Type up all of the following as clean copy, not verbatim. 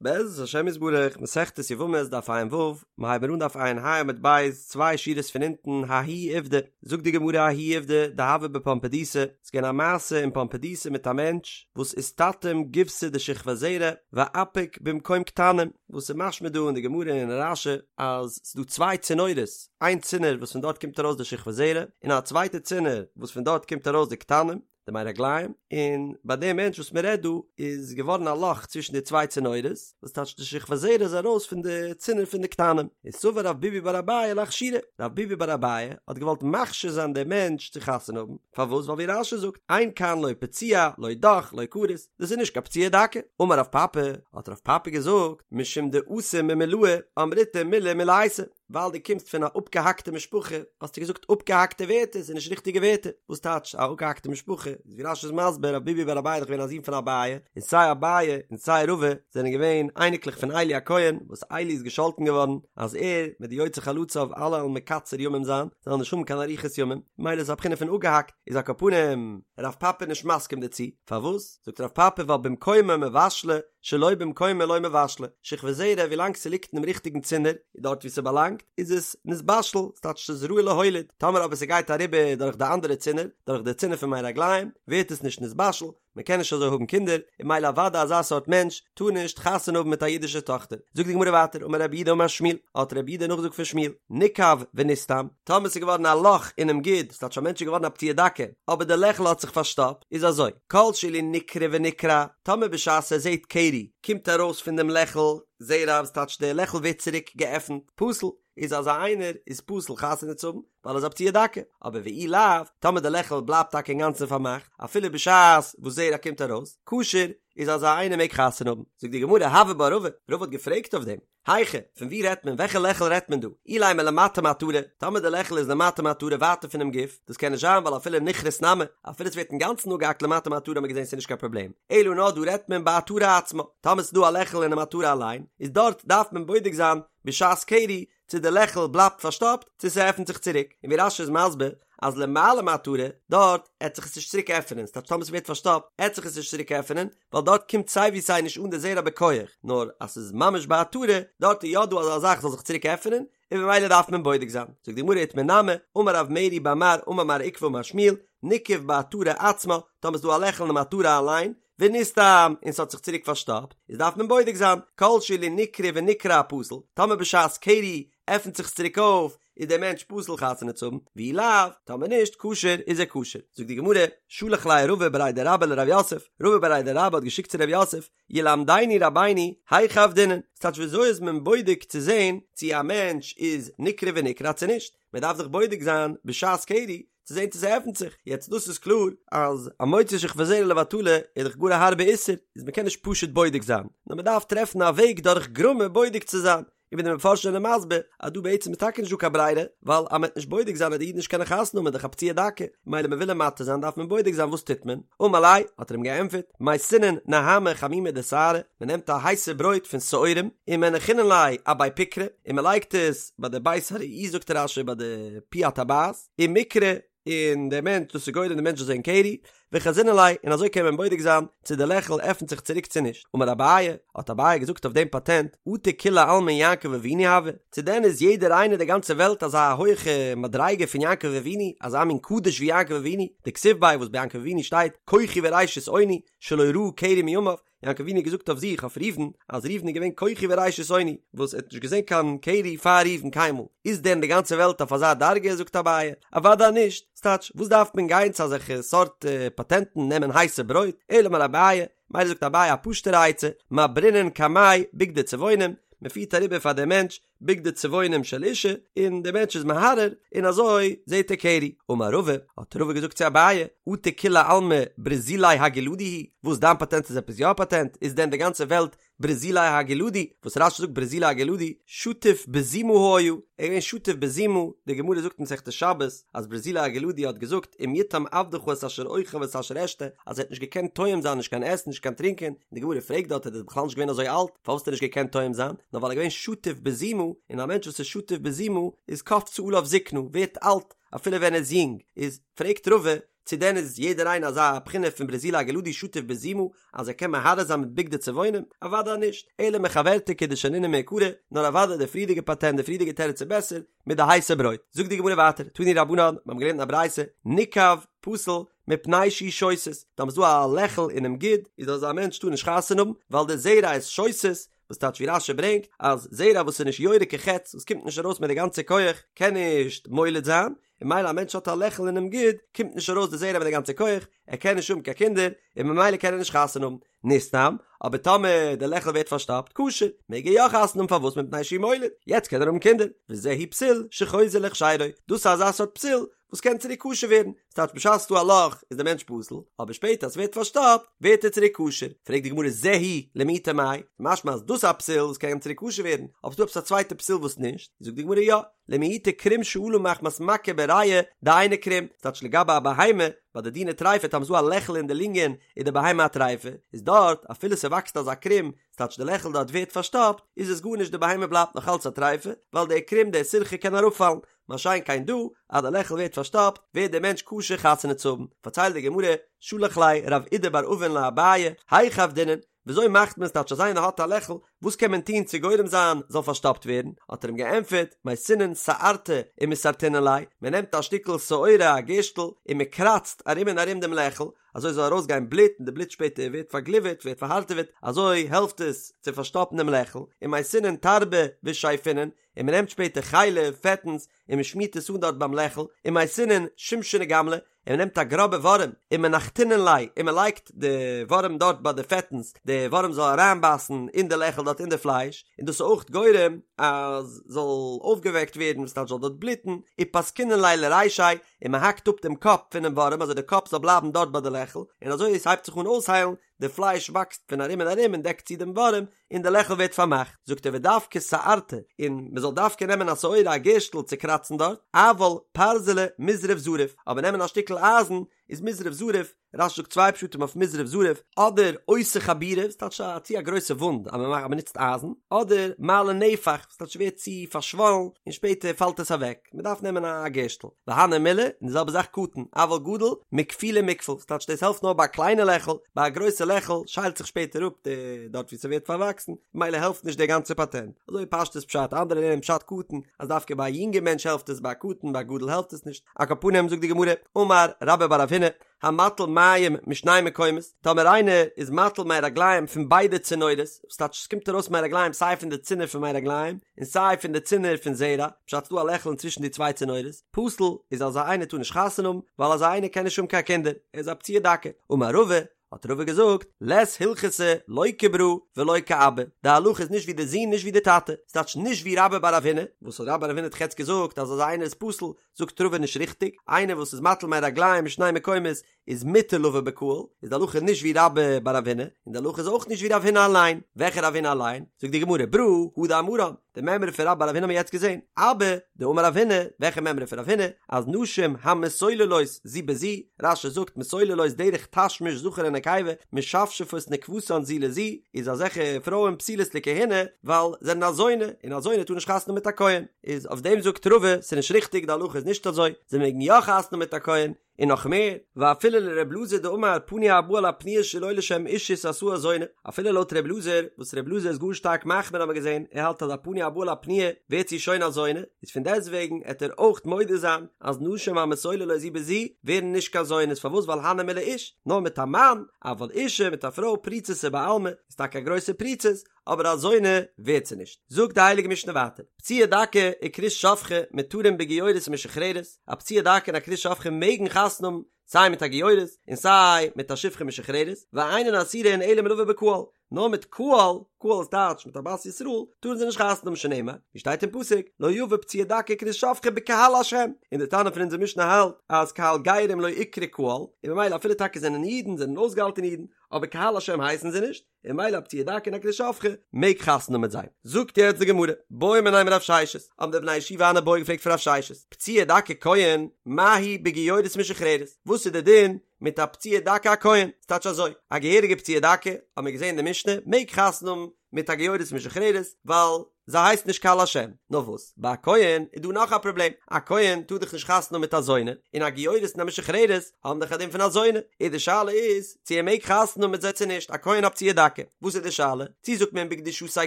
בעזרת השם יתברך, מסכת יבמות דף ע"ו, מיר הייבן אן דף ע"ה עמוד ב', צוויי שורות פון אונטן, ההוא עובדא, זאגט די גמרא ההוא עובדא דהוה בפומבדיתא, ס'איז געווען א מעשה אין פומבדיתא מיט א מענטש וואס איסתתים גיבסא דשכבת זרע ואפיק במקום קטנים, וואס איז משמע דא אין די גמרא און אין רש"י אז ס'איז דא צוויי צינורות, איין צינור וואס פון דארט קומט ארויס די שכבת זרע, און א צווייטע צינור וואס פון דארט קומט ארויס די קטנים. די מי רגליים, און ביי דעם מענטש וואס מען רעדט דא איז געווארן א לאך צווישן די צוויי צינורות, וואס טייטש די שכבת זרע איז ארויס פון די צינור פון די קטנים, איז סבר רב ביבי בר אביי לאכשורי, רב ביבי בר אביי האט געוואלט מכשיר זיין דעם מענטש צו חתונה האבן, פארוואס ווייל ווי רש"י זאגט, אין כאן לא פצוע לא דך לא כרות, דאס איז נישט קיין פצוע דכא, אמר רב פפי, האט רב פפי געזאגט, משום דאתא ממולאי אמריתו מילי מולייתא, ווייל דו קומסט פון א אפגעהאקטע משפחה האסטו געזאגט אפגעהאקטע ווערטער, ס'איז נישט ריכטיגע ווערטער. וואס טייטש א אפגעהאקטע משפחה? איז ווי רש"י איז מסביר רב ביבי בר אביי איז דאך געווען א זון פון אביי, און סיי אביי און סיי רבא זענען געווען אייניקלעך פון עלי הכהן, וואס עלי איז געשאלטן געווארן אז ער מיט די יוצאי חלציו אלע וועלן מקצר ימים זיין, זיי וועלן נישט האבן קיין אריכות ימים, ממילא איז א בחינה פון אפגעהאקט, איז על כל פנים רב פפי נישט מסכים דערצו, פארוואס? זאגט רב פפי ווייל במקומה מבשלא שלא במקומה לא מבשלא, שכבת זרע ווילאנג ס'ליגט אינעם ריכטיגן צינור, דארט וואו ס'באלאנגט, איז עס נתבשל, ס'טייטש ס'איז ראוי להוליד, טאמער אבער ס'גייט אריבער דורך די אנדערע צינור, דורך די צינור פון מי רגליים, ווערט עס נישט נתבשל, מ'קען נישט אזוי האבן קינדער, און ממילא אוודאי אזא סארט מענטש טאר נישט חתונה האבן מיט א אידישע טאכטער. זאגט די גמרא ווייטער, אמר רב יהודה אמר שמואל, האט רב יהודה נאכגעזאגט פון שמואל, ניקב ונסתם, טאמער ס'איז געווארן א לאך אינעם גיד, ס'טייטש א מענטש איז געווארן א פצוע דכא, אבער די לעכל האט זיך פארשטאפט, איז אזוי, כל שאילו נקרע ונקרע, טאמער בשעת ער זעט קרי קומט ארויס פון דעם לעכל זרע וואס טייטש די לעכל ווערט צוריק געעפנט, פסול, איז אזא איינער איז פסול חתונה צו האבן, ווייל ער איז א פצוע דכא, אבער ואי לאו, טאמער די לעכל בלייבט טאקע אינגאנצן פארמאכט, אפילו בשעת וואס זרע קומט ארויס, כשר, איז אזא איינער מעג חתונה האבן. זאגט די גמרא, הוי בה רבא, רבא האט געפרעגט אויף דעם, היכא, פון וואו רעדט מען? וועלכע לעכל רעדט מען דא? אילימא למטה מעטרה, טאמער די לעכל איז למטה מעטרה ווייטער פונעם גוף, דאס קען נישט זיין ווייל אפילו נכרת נמי, אפילו עס ווערט אינגאנצן אפגעהאקט למטה מעטרה האט מען געזען ס'איז נישט קיין פראבלעם, אלא נאר דא רעדט מען בעטרה עצמה, טאמער ס'איז דא א לעכל אינעם עטרה אליין, איז דארט דארף מען בודק זיין בשעת קרי צו די לעכל בלייבט פארשטאפט צו ס'עפנט זיך צוריק, און ווי רש"י איז מסביר אז למעלה מעטרה דארט עט זיך עס נישט צוריק עפענען, ס'טייטש טאמער ס'ווערט פארשטאפט עט זיך עס נישט צוריק עפענען, ווייל דארט קומט סיי ווי סיי נישט אן די זרע בכח, נאר אז ס'איז ממש בעטרה דארט איז יא דא אזא זאך זאל זיך צוריק עפענען, און ממילא דארף מען בודק זיין. זאגט די גמרא איתמר נמי, אמר רב מרי בר מר אמר מר עוקבא אמר שמואל, ניקב בעטרה עצמה, טאמער ס'איז דא א לעכל אינעם עטרה אליין, ונסתם, און ס'האט זיך צוריק פארשטאפט, איז דארף מען בודק זיין, כל שאילו נקרע ונקרע פסול, טאמער בשעת קרי עפנט זיך עס צוריק אויף, איז דער מענטש פסול חתונה צו האבן, ואי לאו, טאמער נישט, כשר, איז ער כשר. זאגט די גמרא, שלח ליה רבא בריה דרבה לרב יוסף, רבא בריה דרבה האט געשיקט צו רב יוסף, ילמדנו רבינו, היכי עבדינן, ס'טייטש וויאזוי איז מען בודק צו זען צו א מענטש איז נקרע ונקרע צו נישט, מען דארף זיך בודק זיין בשעת קרי, צו זען צו ס'עפנט זיך, יעצט דאס איז קלאר אז המוציא שכבת זרע לבטלה איז דאך גאר א הארבע איסור, איז מ'קען נישט פשוט בודק זיין, נאר מ'דארף טרעפן א וועג דורך גרמא בודק צו זיין, און ווי די מפרשים זענען מסביר אז דא בעצם איז טאקע נישט דא קיין ברירה, ווייל אז מ'וועט נישט בודק זיין וועט די איד נישט קענען חתונה האבן איז דאך א פצוע דכא, ממילא מ'וויל אים מתיר זיין דארף מען בודק זיין וואס טוט מען? אמר ליה, האט ער אים געענטפערט, מייתינן נהמא חמימא דשערי, מ'נעמט א הייסע ברויט פון שעורים, ומנחינן ליה אבי פקרא, און מ'לייגט עס ביי די בית הראי זאגט רש"י ביי די פי הטבעת, ומקרי, און דער מענטש, דאס איז גורם דער מענטש זאל זען קרי, וחזינן ליה, און אזוי קען מען בודק זיין צו די לעכל עפנט זיך צוריק צו נישט. אמר אביי, האט אביי געזאגט אויף דעם פאטענט, אטו כולי עלמא יעקב אבינו הוה, צו דען איז יעדער איינער די גאנצע וועלט אזא הויכע מדריגה פון יעקב אבינו, אזא מין קדוש ווי יעקב אבינו, דכתיב ביה וואס ביי יעקב אבינו שטייט כוחי וראשית אוני, שלא ראה קרי מימיו, יעקב אבינו האט געזאגט אויף זיך אויף ראובן אז ראובן איז געווען כוחי וראשית אוני וואס ער האט נישט געזען קיין קרי פאר ראובן קיינמאל, איז דען די גאנצע וועלט אויף אזא דרגה זאגט אביי, אוודאי נישט, ס'טייטש וואס דארף מען גיין צו אזעלכע סארט פאטענטן נעמען הייסע ברויט, אלא אמר אביי, מילא זאגט אביי א פשוטערע עצה, מעברינן קמיה בגדי צבעונים, מען פירט אריבער פאר דעם מענטש בגדי צבעונים של אישה, און דער מענטש איז מהרהר, און אזוי זעט ער קרי. אמר רבא, האט רבא געזאגט צו אביי, אטו כולי עלמא ברזילי הגלעדי הוא, וואס דיין פאטענט איז עפעס יא א פאטענט, איז דען די גאנצע וועלט ברזילי הגלעדי, וואס רש"י זאגט ברזילי הגלעדי, שטוף בזימה היה, ער איז געווען שטוף בזימה, די גמרא זאגט אין מסכת שבת, אז ברזילי הגלעדי האט געזאגט אם יטעם עבדך את אשר אוכל ואת אשר אשתה, אז ער האט נישט געקענט טועם זיין נישט קיין עסן נישט קיין טרינקען, און די גמרא פרעגט דארט ער איז בכלל נישט געווען אזוי אלט, פארוואס האט ער נישט געקענט טועם זיין? נאר ווייל ער איז געווען שטוף בזימה, און א מענטש וואס איז שטוף בזימה איז קפצה עליו זקנה, ווערט אלט אפילו ווען ער איז יונג, איז פרעגט רבא, צו דען איז יעדער איינער אזא בחינה פון ברזילי הגלעדי שטוף בזימה אז ער קען מהרהר זיין מיט בגדי צבעונים? אוודאי נישט, אלא מחוורתא כדשנינן מעיקרא, נאר אוודאי די פריערדיגע פאטענט די פריערדיגע תירוץ איז בעסער, מיט די הייסע ברויט. זאגט די גמרא ווייטער, תנו רבנן, מיר האבן געלערנט אין א ברייתא, ניקב פסול מפני שהוא שותת, טאמער ס'איז דא א לעכל אינעם גיד, איז אזא מענטש טאר נישט חתונה האבן, ווייל די זרע איז שותת, וואס טייטש ווי רש"י ברענגט, אז זרע וואס איז נישט יורה כחץ, וואס קומט נישט ארויס מיט די גאנצע כח, קען נישט מוליד זיין, און ממילא א מענטש האט א לעכל אינעם גיד, קומט נישט ארויס די זרע מיט די גאנצע כח, ער קען נישט האבן קיין קינדער, און ממילא קען ער נישט חתונה האבן. נסתם, אבער טאמער די לעכל ווערט פארשטאפט, כשר, מעג ער יא חתונה האבן פארוואס מפני שהוא מוליד, יעצט קען ער האבן קינדער, וזהו פסול שחוזר להכשרו, דאס איז אזא סארט פסול וואס קען צוריק כשר ווערן, ס'טייטש בשעת ס'דא א לאך איז דער מענטש פסול, אבער שפעטער אז ס'ווערט פארשטאפט ווערט ער צוריק כשר, פרעגט די גמרא זהו למעוטי מאי, משמע אז דאס איז א פסול וואס קען צוריק כשר ווערן, אבער ס'דא עפעס א צווייטע פסול וואס נישט, זאגט די גמרא יא, למעוטי קרום שעלה מחמת מכה בריאה דאינו קרום, ס'טייטש לגבי א בהמה, ביי די דיני טריפה טאמער ס'דא א לעכל אין די לונגען איז די בהמה א טריפה, איז דארט אפילו ס'וואקסט אזא קרום, ס'טייטש די לעכל דארט ווערט פארשטאפט, איז עס גארנישט די בהמה בלייבט נאך אלץ א טריפה, ווייל דער קרום דער סירכא קען אראפפאלן, מה שאין כן דא, אז די לעכל ווערט פארשטאפט, ווערט דער מענטש כשר חתונה צו האבן. פארציילט די גמרא, שלח ליה רב אידי בר אבין לאביי, היכי עבדינן, וויאזוי מאכט מען ס'טייטש אז איינער האט א לעכל, וואס קען מען טון צו גורם זיין זאל פארשטאפט ווערן? האט ער אים געענטפערט, מייתינן שערתא ומסרטינן ליה, מען נעמט א שטיקל שעורה א גערשטל און מען קראצט ארום און ארום דעם לעכל, אזוי זאל ארויסגיין בלוט און די בלוט שפעטער ווערט פארגליווערט ווערט פארהארטעוועט, אזוי העלפט עס צו פארשטאפן דעם לעכל, ומייתינן תרבא ושייפינן, און מען נעמט שפעטער חלב, פעטנס, און מען שמירט עס אן דארט ביים לעכל, ומייתינן שומשנא גמלא, און מען נעמט א גראבע ווארעם, ומנחתינן ליה, און מען לייגט די ווארעם דארט ביי די פעטנס, די ווארעם זאל אריינבייסן אין די לעכל דארט אין די פלייש, און דאס איז אויך גורם אז זאל אויפגעוועקט ווערן וואס טייטש זאל דארט בלוטן, ופסקינן ליה לרישיה, און מען האקט אפ דעם קאפ פונעם ווארעם אזוי די קאפ זאל בלייבן דארט ביי די לעכל, און אזוי עס הייבט זיך אן אויסהיילן, די פלייש וואקסט פון ארום און ארום און דעקט צו דעם ווארעם, און די לעכל ווערט פארמאכט, זאגט ער ודווקא שערתא, און מען זאל דווקא נעמען א שעורה א גערשטל צו קראצן דארט, אבל פרזלא מזרף זריף, אבער נעמען א שטיקל אייזן איז מזרף זריף, רש"י זאגט צוויי פשטים אויף מזרף זריף, אדער עושה חבורה, ס'טייטש א צו א גרויסע וואונד אז מען מאכט אז מען נוצט אייזן, אדער מעלה נפח, ס'טייטש ס'ווערט צו פארשוואלן און שפעטער פאלט עס אוועק, מען דארף נעמען א גערשטל. והני מילי, און די זעלבע זאך קטן, אבל גדול, מכפולי מכפל, ס'טייטש דאס העלפט נאר ביי א קליינע לעכל, ביי א גרויסע לעכל שיילט זיך שפעטער אפ די דארט ווי ס'ווערט פארוואקסן, ממילא העלפט נישט דער גאנצער פאטענט. אזוי פשטות פשט, אנדערע לערנען פשט קטן, אז דווקא ביי א יונגע מענטש העלפט עס, ביי א קטן, ביי א גדול העלפט עס נישט. על כל פנים זאגט די גמרא, אמר רבה בר רב הונא, המטיל מים משני מקומות, טאמער איינער איז מטיל מי רגליים פון ביידע צינורות, וואס טייטש עס קומט ארויס מי רגליים סיי פון די צינור פון מי רגליים און סיי פון די צינור פון זרע, פשט ס'דא א לעכל אינצווישן די צוויי צינורות, פסול איז אזא איינער טאר נישט חתונה האבן, ווייל אזא איינער קען נישט האבן קיין קינדער, ער איז א פצוע דכא. אמר רבא, האט רבא געזאגט, לית הלכתא לא כברא ולא כאבא, די הלכה איז נישט ווי די זון נישט ווי די טאטע, ס'טייטש נישט ווי רבה בר רב הונא, וואס האט רבה בר רב הונא האט יעצט געזאגט אז אזא איינער איז פסול, זאגט רבא נישט ריכטיג, איינער וואס איז מטיל מי רגליים משני מקומות איז מותר לבא בקהל, איז די הלכה נישט ווי רבה בר רב הונא, און די הלכה איז אויך נישט ווי רב הונא אליין, וועלכע רב הונא אליין? זאגט די גמרא, ברא הא דאמרן, די מימרא פון רבה בר רב הונא האבן מיר יעצט געזען, אבא דאמר רב הונא, וועלכע מימרא פון רב הונא? אז נשים המסוללות זו בזו, רש"י זאגט מסוללות דרך תשמיש זכר ונקבה, משפשפות נקבתן זו לזו, איז אזעלכע פרויען פסולות לכהונה, ווייל זענען א זונה, און א זונה טאר נישט חתונה מיט א כהן. איז אויף דעם זאגט רבא ס'איז נישט ריכטיג די הלכה איז נישט אזוי, זיי מעגן יא חתונה מיט א כהן, און נאך מער, ואפילו לר' אלעזר דאמר פנוי הבא על הפנויה שלא לשם אישות עשאה זונה, אפילו לויט ר' אלעזר, וואס ר' אלעזר איז גאר שטארק מחמיר האבן מיר געזען, ער האלט אז א פנוי הבא על הפנויה ווערט זי שוין א זונה, איז פון דעסטוועגן עט ער אויך מודה זיין אז נשים המסוללות זו בזו ווערן נישט קיין זונות, פארוואס ווייל הני מילי איש, נאר מיט א מאן, אבל אישה מיט א פרוי פריצותא בעלמא, איז טאקע א גרויסע פריצות, אבער א זונה ווערט זי נישט. זאגט די הייליגע משנה ווייטער, פצוע דכא וכרות שפכה מותרים בגיורת ומשוחררת, א פצוע דכא און א כרות שפכה מעגן חתונה האבן סיי מיט א גיורת און סיי מיט א שפחה משוחררת, ואינן אסורין אלא מלבא בקהל, נאר מיט קהל, קהל איז טייטש מיט א בת ישראל, טארן זיי נישט חתונה האבן שנאמר, ווי שטייט אין פסוק, לא יבא פצוע דכא וכרות שפכה בקהל השם, און די תנא פון אונזער משנה האלט אז קהל גרים לא איקרי קהל, און ממילא אפילו טאקע זענען אידן, זענען אויסגעהאלטענע אידן, אבער קהל השם הייסן זיי נישט, און ממילא א פצוע דכא און א כרות שפכה מעג חתונה האבן מיט זיי. זאגט יעצט די גמרא, בעו מיניה מרב ששת, האבן די בני ישיבה אן איבעיא געפרעגט פון רב ששת, פצוע דכא כהן, מהו בגיורת ומשוחררת? וואס וואס איז די דין מיט א פצוע דכא א כהן? ס'טייטש אזוי, א געהעריגע פצוע דכא, האבן מיר געזען אין די משנה, מעג חתונה האבן מיט א גיורת משוחררת, ווייל זי הייסט נישט קל השם. נאר וואס, ביי א כהן איז דא נאך א פראבלעם, א כהן טאר דאך נישט חתונה האבן מיט א זונה, און א גיורת און א משוחררת האבן דאך א דין פון א זונה, איז די שאלה איז צו ער מעג חתונה האבן מיט זיי צו נישט, א כהן א פצוע דכא, וואס איז די שאלה? צו זאגט מען בקדושתיה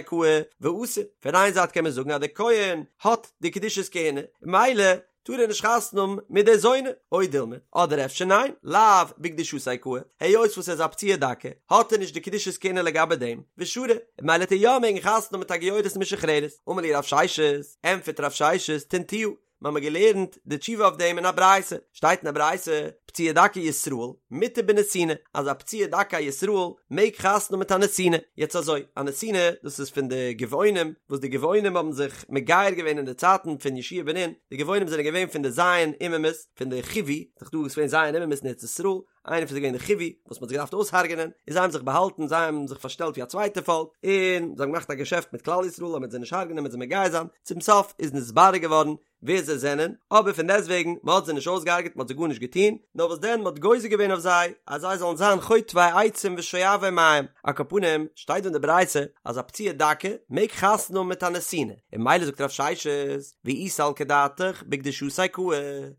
קאי ואסיר, פון איין זייט קען מען זאגן אז דער כהן האט די קדושת כהונה, ממילא טאר ער נישט חתונה האבן מיט די זונה, או דילמא, אדער אפשר ניין, לאו בקדושתיה קאי, היות וואס ער איז א פצוע דכא, האט ער נישט די קדושת כהונה לגבי דעם, ושרי, ממילא וועט ער יא מעגן חתונה האבן מיט א גיורת משוחררת. אמר להו רב ששת, ענטפערט רב ששת, תניתוה, מיר האבן געלערנט די תשובה אויף דעם אין א ברייתא, שטייט אין א ברייתא, פצוע דכא ישראל, מותר בנתינה, אז א פצוע דכא ישראל מעג חתונה האבן מיט א נתינה, יעצט אזוי, א נתינה, דאס איז פון די גבעונים, וואס די גבעונים האבן זיך מגייר געווען אין די צייטן פון יהושע בן נון, די גבעונים זענען געווען פון די ז' אומות, פון די חיווי, ס'איז דאך דא געווען ז' אומות אין ארץ ישראל, איינער פון זיי געווען די חיווי, וואס מ'האט זיי געדארפט אויסהרג'ענען, און זיי האבן זיך באהאלטן, זיי האבן זיך פארשטעלט ווי א צווייטע פאלק, און זיי האבן געמאכט א געשעפט מיט כלל ישראל אז מ'וועט זיי נישט הרג'ענען, מ'וועט זיי מגייר זיין, צום סוף איז נתברר געווארן ווער זיי זענען, אבער פון דעסטוועגן, מען האט זיי נישט אויסגעהרגעט, מען האט זיי גארנישט געטון, נאר וואס דען, מען האט גוזר געווען אויף זיי, אז זיי זאלן זיין חוטבי עצים ושואבי מים. על כל פנים, שטייט דא אין די ברייתא, אז א פצוע דכא מעג חתונה האבן מיט א נתינה, און ממילא זאגט רב ששת, ואי סלקא דעתך בקדושתיה קאי,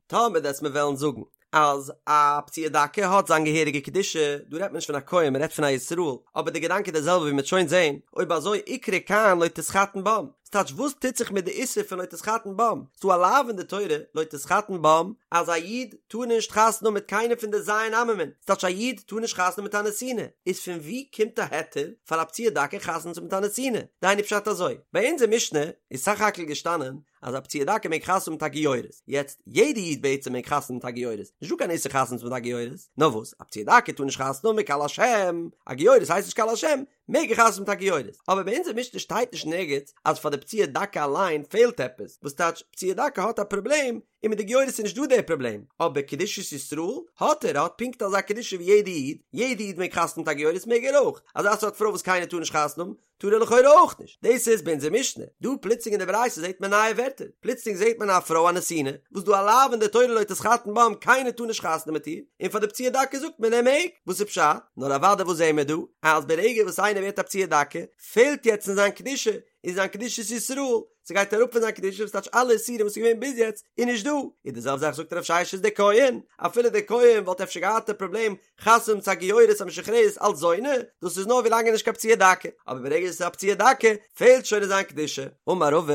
טאמער וועסט מיר וועלן זאגן, אז א פצוע דכא האט זיין געהעריגע קדושה, דא רעדט מען נישט פון א כהן מען רעדט פון א ישראל, אבער די געדאנק איז די זעלבע ווי מ'וועט שוין זעהן, אויב אזוי איקרי כאן לא תתחתן בם, ס'טייטש וואס טוט זיך מיט די איסור פון לא תתחתן בם, ס'דא א לאו אין די תורה לא תתחתן בם אז א איד טאר נישט חתונה האבן מיט קיינעם פון די ז' עממין, ס'טייטש א איד טאר נישט חתונה האבן מיט א נתינה, איז פון ווי קומט א היתר פאר א פצוע דכא חתונה צו האבן מיט א נתינה? דהיינו פשט אזוי, ביי אונזער משנה איז סך הכל געשטאנען אז א פצוע דכא מעג חתונה האבן מיט א גיורת, יעצט יעדע איד בעצם מעג חתונה האבן מיט א גיורת, נישט דא קיין איסור חתונה צו האבן מיט א גיורת, נאר וואס א פצוע דכא טאר נישט חתונה האבן מיט קל השם, א גיורת הייסט נישט קל השם, מעג ער חתונה האבן מיט א גיורת, אבער ביי אונזער משנה שטייט נישט נערגיץ אז פאר די פצוע דכא אליין פעלט עפעס, וואס טייטש פצוע דכא האט א פראבלעם, און מיט די גיורת איז נישט דא די פראבלעם, אבער קדושת ישראל האט ער, ער האט פונקט אזא קדושה ווי יעדע איד, יעדע איד מעג חתונה האבן מיט א גיורת מעג ער אויך, אזא סארט פרוי וואס קיינער טאר נישט חתונה האבן, טאר ער לכאורה אויך נישט. דאס איז ביי אונזער משנה. דא פלוצלינג אין די ברייתא זעט מען נייע ווערטער. פלוצלינג זעט מען א פרוי א נתינה, וואס דא א לאו אין די תורה לא תתחתן בם, קיינער טאר נישט חתונה מיט איר, און פאר די פצוע דכא זאגט מען ער מעג. וואס איז פשט? נאר אוודאי וואס זעען מיר דא? אז ברגע וואס איינער ווערט א פצוע דכא, פעלט יעצט אין זיין קדושה, אין זיין קדושת ישראל, ס'גייט אראפ פון זיין קדושה, וואס טייטש אלע איסורים וואס איז געווען ביז יעצט איז נישט דא. און די זעלבע זאך זאגט רב ששת די כהן, אפילו די כהן וואלט אפשר געהאט א פראבלעם חתונה צו א גיורת א משוחררת אלץ זונה, דאס איז נאר ווילאנג ער איז נישט קיין פצוע דכא, אבער ברגע עס איז א פצוע דכא פעלט שוין אין זיין קדושה. אמר רבא,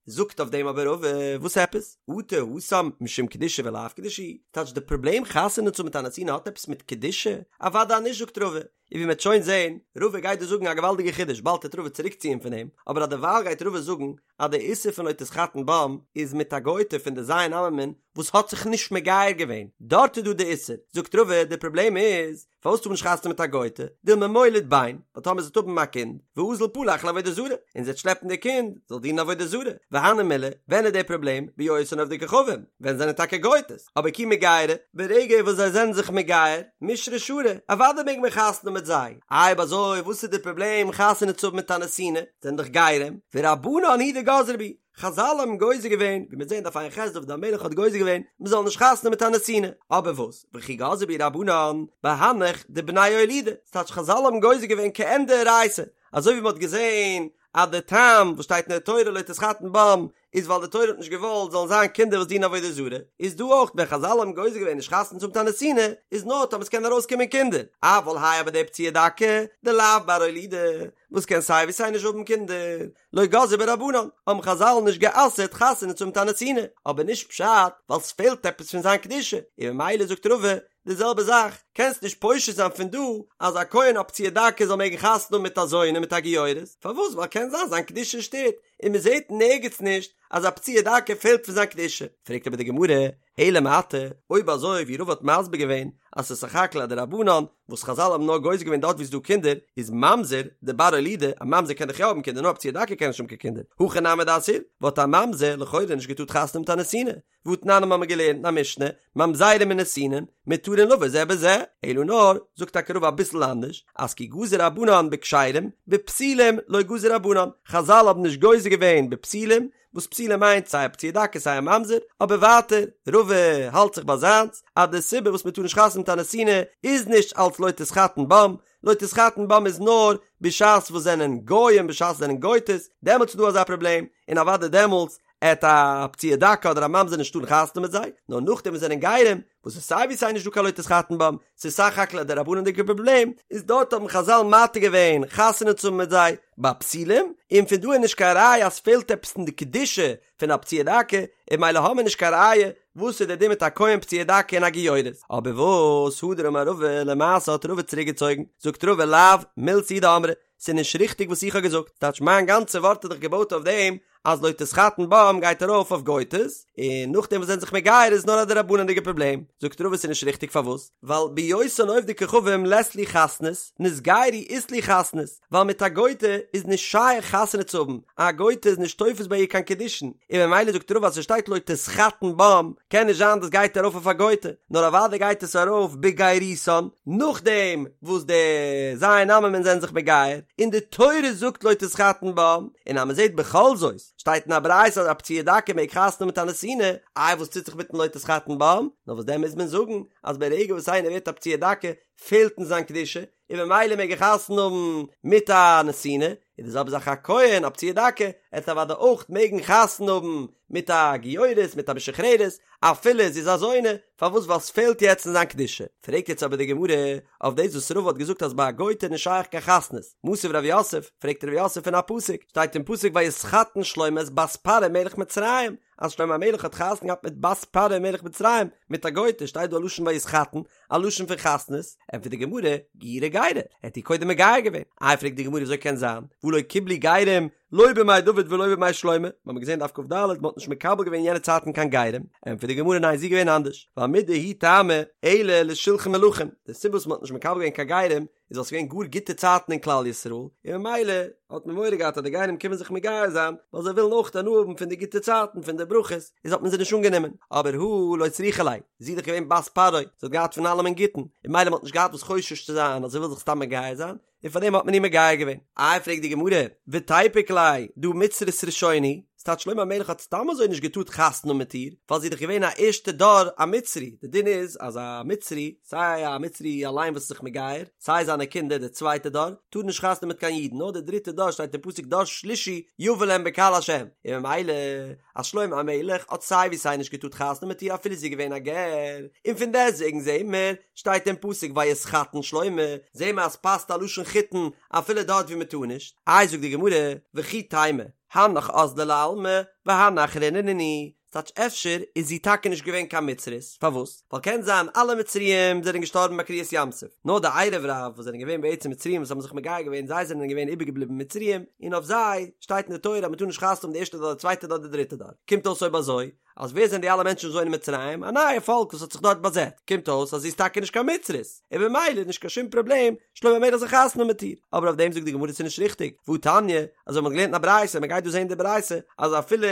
זאגט אויף דעם אבער רבא, וואס עפעס? אטו התם משום קדושה ולאו קדושה היא? טייטש די פראבלעם חתונה צו האבן מיט א נתינה האט עפעס מיט קדושה? אוודאי נישט זאגט רבא, און ווי מ'עט שוין זעהן, רבא גייט דא זאגן א געוואלדיגע חידוש, באלד וועט רבא צוריקציען פון דעם, אבער א דערווייל גייט רבא זאגן אז די איסור פון לא תתחתן בם איז מיט א גוי'טע פון די ז' עממין וואס האט זיך נישט מגייר געווען, דארט איז דא די איסור, זאגט רבא די פראבלעם איז פארוואס טאר מען נישט חתונה מיט א גוי'טע, דילמא מוליד בן, ווייל טאמער זי וועט האבן א קינד, ואזיל פלח לעבודה זרה, און זי וועט שלעפן די קינד, זאל דינען עבודה זרה, והני מילי, ווען איז די פראבלעם, בהיותן עובדי כוכבים, ווען זענען טאקע גוי'טעס, אבער כי מגיירי, ברגע וואס זיי זענען זיך מגייר, מישרא שרי, אוודאי מעג מען חתונה מיט זיי, אויב אזוי וואס איז די פראבלעם חתונה צו האבן מיט א נתינה, זענען דאך גרים, ורבנן הוא דגזרו בהו, חזל האבן גוזר געווען, ווי מיר זעהן דף ע"ח דוד המלך האט גוזר געווען מען זאל נישט חתונה מיט א נתינה, אבער וואס, וכי גזרו בהו רבנן, בהנך דבני אולודי, ס'טייטש חזל האבן גוזר געווען כעין דאורייתא, אזוי ווי מען האט געזעהן אז די טעם וואס שטייט אין די תורה לא תתחתן בם איז ווייל די תורה האט נישט געוואלט זאלן זיין קינדער וואס דינען עבודה זרה, איז דא אויך ווען חזל האבן גוזר געווען נישט חתונה צו האבן מיט א נתינה, איז נאר טאמער ס'קען ארויסקומען קינדער, אבל האי אבער די פצוע דכא, דלאו בר אולודי, וואס קען סיי ווי סיי נישט האבן קינדער, לא גזרו ביה רבנן, האבן חזל נישט גע'אסר'ט חתונה צו האבן מיט א נתינה, אבער נישט פשט ווייל ס'פעלט עפעס פון זיין קדושה, און ממילא זאגט רבא די זעלבע זאך, קענסט נישט פושט זיין פון דא אז א כהן א פצוע דכא זאל מעגן חתונה האבן מיט א זונה מיט א גיורת, פארוואס ווייל קען זיין זיין קדושה שטערט, און מען זעט נערגעץ נישט אז א פצוע דכא פעלט פון זיין קדושה, פרעגט אבער די גמרא, אלא מעתה, אויב אזוי ווי רבא האט מסביר געווען אז ס'איז סך הכל א דרבנן וואס חזל האבן נאר גוזר געווען דארט ווי ס'איז דא קינדער, איז ממזר דבר אולודי, א ממזר קען דאך יא האבן קינדער נאר א פצוע דכא קען נישט האבן קיין קינדער, הכי נמי דאסיר, וואלט א ממזר לכאורה נישט געטארט חתונה מיט א נתינה, והתנן האבן מיר געלערנט אין א משנה, ממזרים ונתינין, מותרין לבא זה בזה. אלא נאר, זאגט טאקע רבא אביסל אנדערש, אז כי גזור רבנן בכשרים, בפסולים לא גזור רבנן, חזל האבן נישט גוזר געווען בפסולים, וואס פסולים מיינט סיי א פצוע דכא סיי א ממזר, אבער ווייטער, רבא האלט זיך ביי זיינס, אז די סיבה וואס מען טאר נישט חתונה מיט א נתינה איז נישט אלץ לא תתחתן בם, לא תתחתן בם איז נאר בשעת וואס זענען גוים בשעת זענען גויטעס, דעמאלטס איז דא אזא פראבלעם, און אוודאי דעמאלטס עט א פצוע דכא אדער א ממזר נישט טארן חתונה מיט זיי, נאר נאכדעם וואס זענען גרים, וואס איז סיי ווי סיי נישט דא קיין לא תתחתן בם, ס'איז סך הכל א דרבנן'דיגע פראבלעם, איז דארט האבן חזל מתיר געווען חתונה צו האבן מיט זיי ביי פסולים, און פון דא איז נישט קיין ראיה אז ס'פעלט עפעס אין די קדושה פון א פצוע דכא, און ממילא האמיר נישט קיין ראיה וואס איז די דין מיט א כהן פצוע דכא און א גיורת. אבער וואס הדר אמר רבא, למעשה האט רבא צוריק געצויגן, זאגט רבא לאו מילתא היא דאמרי, ס'איז נישט ריכטיג וואס איך האב געזאגט, טייטש מיין גאנצע ווארט איז דאך געבויט אויף דעם אז לא תתחתן בם גייט ארויף אויף גויטעס, און נאכדעם וואס זענען זיך מגייר איז נאר א דרבנן'דיגע פראבלעם, זאגט רבא ס'איז נישט ריכטיג פארוואס? ווייל בהיותן עובדי כוכבים לית להו חתנות, נתגיירו אית להו חתנות, ווייל מיט א גויטע איז נישט שייך חתונה צו האבן, א גויטע איז נישט תופס ביי איר קיין קידושין, און ממילא זאגט רבא אז ס'שטייט לא תתחתן בם, קען נישט זיין דאס גייט ארויף אויף א גויטע, נאר אוודאי גייט עס ארויף בגיירותן, נאכדעם וואס די ז' עממין זענען זיך מגייר, און די תורה זאגט לא תתחתן בם, און אז מ'זעט בכל זאת, שטייט אין א ברייתא אז א פצוע דכא מעג חתונה האבן מיט א נתינה, איי וואס טוט זיך מיטן לא תתחתן בם? נאר וואס דען מוז מען זאגן אז ברגע וואס איינער ווערט א פצוע דכא פעלט אין זיין קדושה, און ממילא מעג ער חתונה האבן מיט א נתינה, איז די זעלבע זאך א כהן א פצוע דכא, עט אוודאי אויך מעגן חתונה האבן מיט א גיורת מיט א משוחררת, אפילו זי איז א זונה, פארוואס ווייל ס'פעלט יעצט אין זיין קדושה. פרעגט יעצט אבער די גמרא אויף דאס וואס רבא האט געזאגט אז ביי א גוי'טע איז נישט שייך קיין חתנות, מתיב רב יוסף, פרעגט רב יוסף פון א פסוק, שטייט אין פסוק ויתחתן שלמה את בת פרעה מלך מצרים, אז שלמה המלך האט חתונה געהאט מיט בת פרעה מלך מצרים, מיט א גוי'טע, שטייט דא א לשון ויתחתן, א לשון פון חתנות, ענטפערט די גמרא, גיורי גיירה, ער האט איר קודם מגייר געווען, איי פרעגט די גמרא וויאזוי קען זיין, והא לא קיבלו גרים לא בימי דוד ולא בימי שלמה, מיר האבן געזען דף כ"ד, מען האט נישט מקבל געווען יענע צייטן קיין גרים, ענטפערט די גמרא ניין ס'איז געווען אנדערש, ווייל מידי הוא טעמא אלא לשולחן מלכים, די סיבה וואס מען האט נישט מקבל געווען קיין גרים איז ווייל ס'איז געווען גאר גוטע צייטן אין כלל ישראל, און ממילא האט מען מורא געהאט אז די גרים קומען זיך מגייר זיין, ווייל זיי ווילן אויך הנאה האבן פון די גוטע צייטן פון די ברכות, איז האט מען זיי נישט אנגענומען, אבער הא לא צריכא ליה, זי איז דאך געווען בת פרעה, זי האט געהאט פון אלעמען גוטן, און ממילא מען האט נישט געהאט וואס חושש צו זיין אז זי וויל זיך סתם מגייר זיין, און פארדעם האט מען איר מגייר געווען. איי פרעגט די גמרא, ותיפוק ליה דהא מצרית ראשונה היא, ס'טייטש שלמה המלך האט סתם אזוי נישט געטארט חתונה האבן מיט איר, ווייל זי איז דאך געווען א ערשטע דור א מצרי, די דין איז אז א מצרי, סיי א מצרי אליין וואס איז זיך מגייר, סיי זיינע קינדער די צווייטע דור, טארן נישט חתונה האבן מיט קיין אידן, נאר די דריטע דור שטייט אין פסוק דור שלישי יבא להם בקהל השם, און ממילא אז שלמה המלך האט סיי ווי סיי נישט געטארט חתונה האבן מיט איר אפילו זי איז געווען א גר, און פון דעסטוועגן זעהן מיר, שטייט אין פסוק ויתחתן שלמה, זעהן מיר אז ס'פאסט א לשון חיתון אפילו דארט ווי מ'טאר נישט, איי זאגט די גמרא, וכי תימא, הנך אזלא לעלמא והני אחריני נינהו, ס'טייטש אפשר איז זי טאקע נישט געווען קיין מצרית, פארוואס? ווייל קען זיין אלע מצריים זענען געשטארבן ביי קריעת ים סוף, נאר די ערב רב וואס זענען געווען בעצם מצריים וואס האבן זיך מגייר געווען זיי זענען געווען איבערגעבליבן מצריים, און אויף זיי שטייט אין די תורה אז מ'טאר נישט חתונה האבן די ערשטע דור די צווייטע דור די דריטע דור, קומט אויס אויב אזוי אז ווער זענען די אלע מענטשן וואס וואוינען אין מצרים? א נייע פאלק וואס האט זיך דארט באזעצט, קומט אויס אז זי איז טאקע נישט קיין מצרית, און במילא איז נישט קיין שום פראבלעם שלמה המלך זאל חתונה האבן מיט איר, אבער אויף דעם זאגט די גמרא ס'איז נישט ריכטיג, והא תניא, אזוי מ'האט געלערנט אין א ברייתא, מ'גייט דא זען די ברייתא, אז אפילו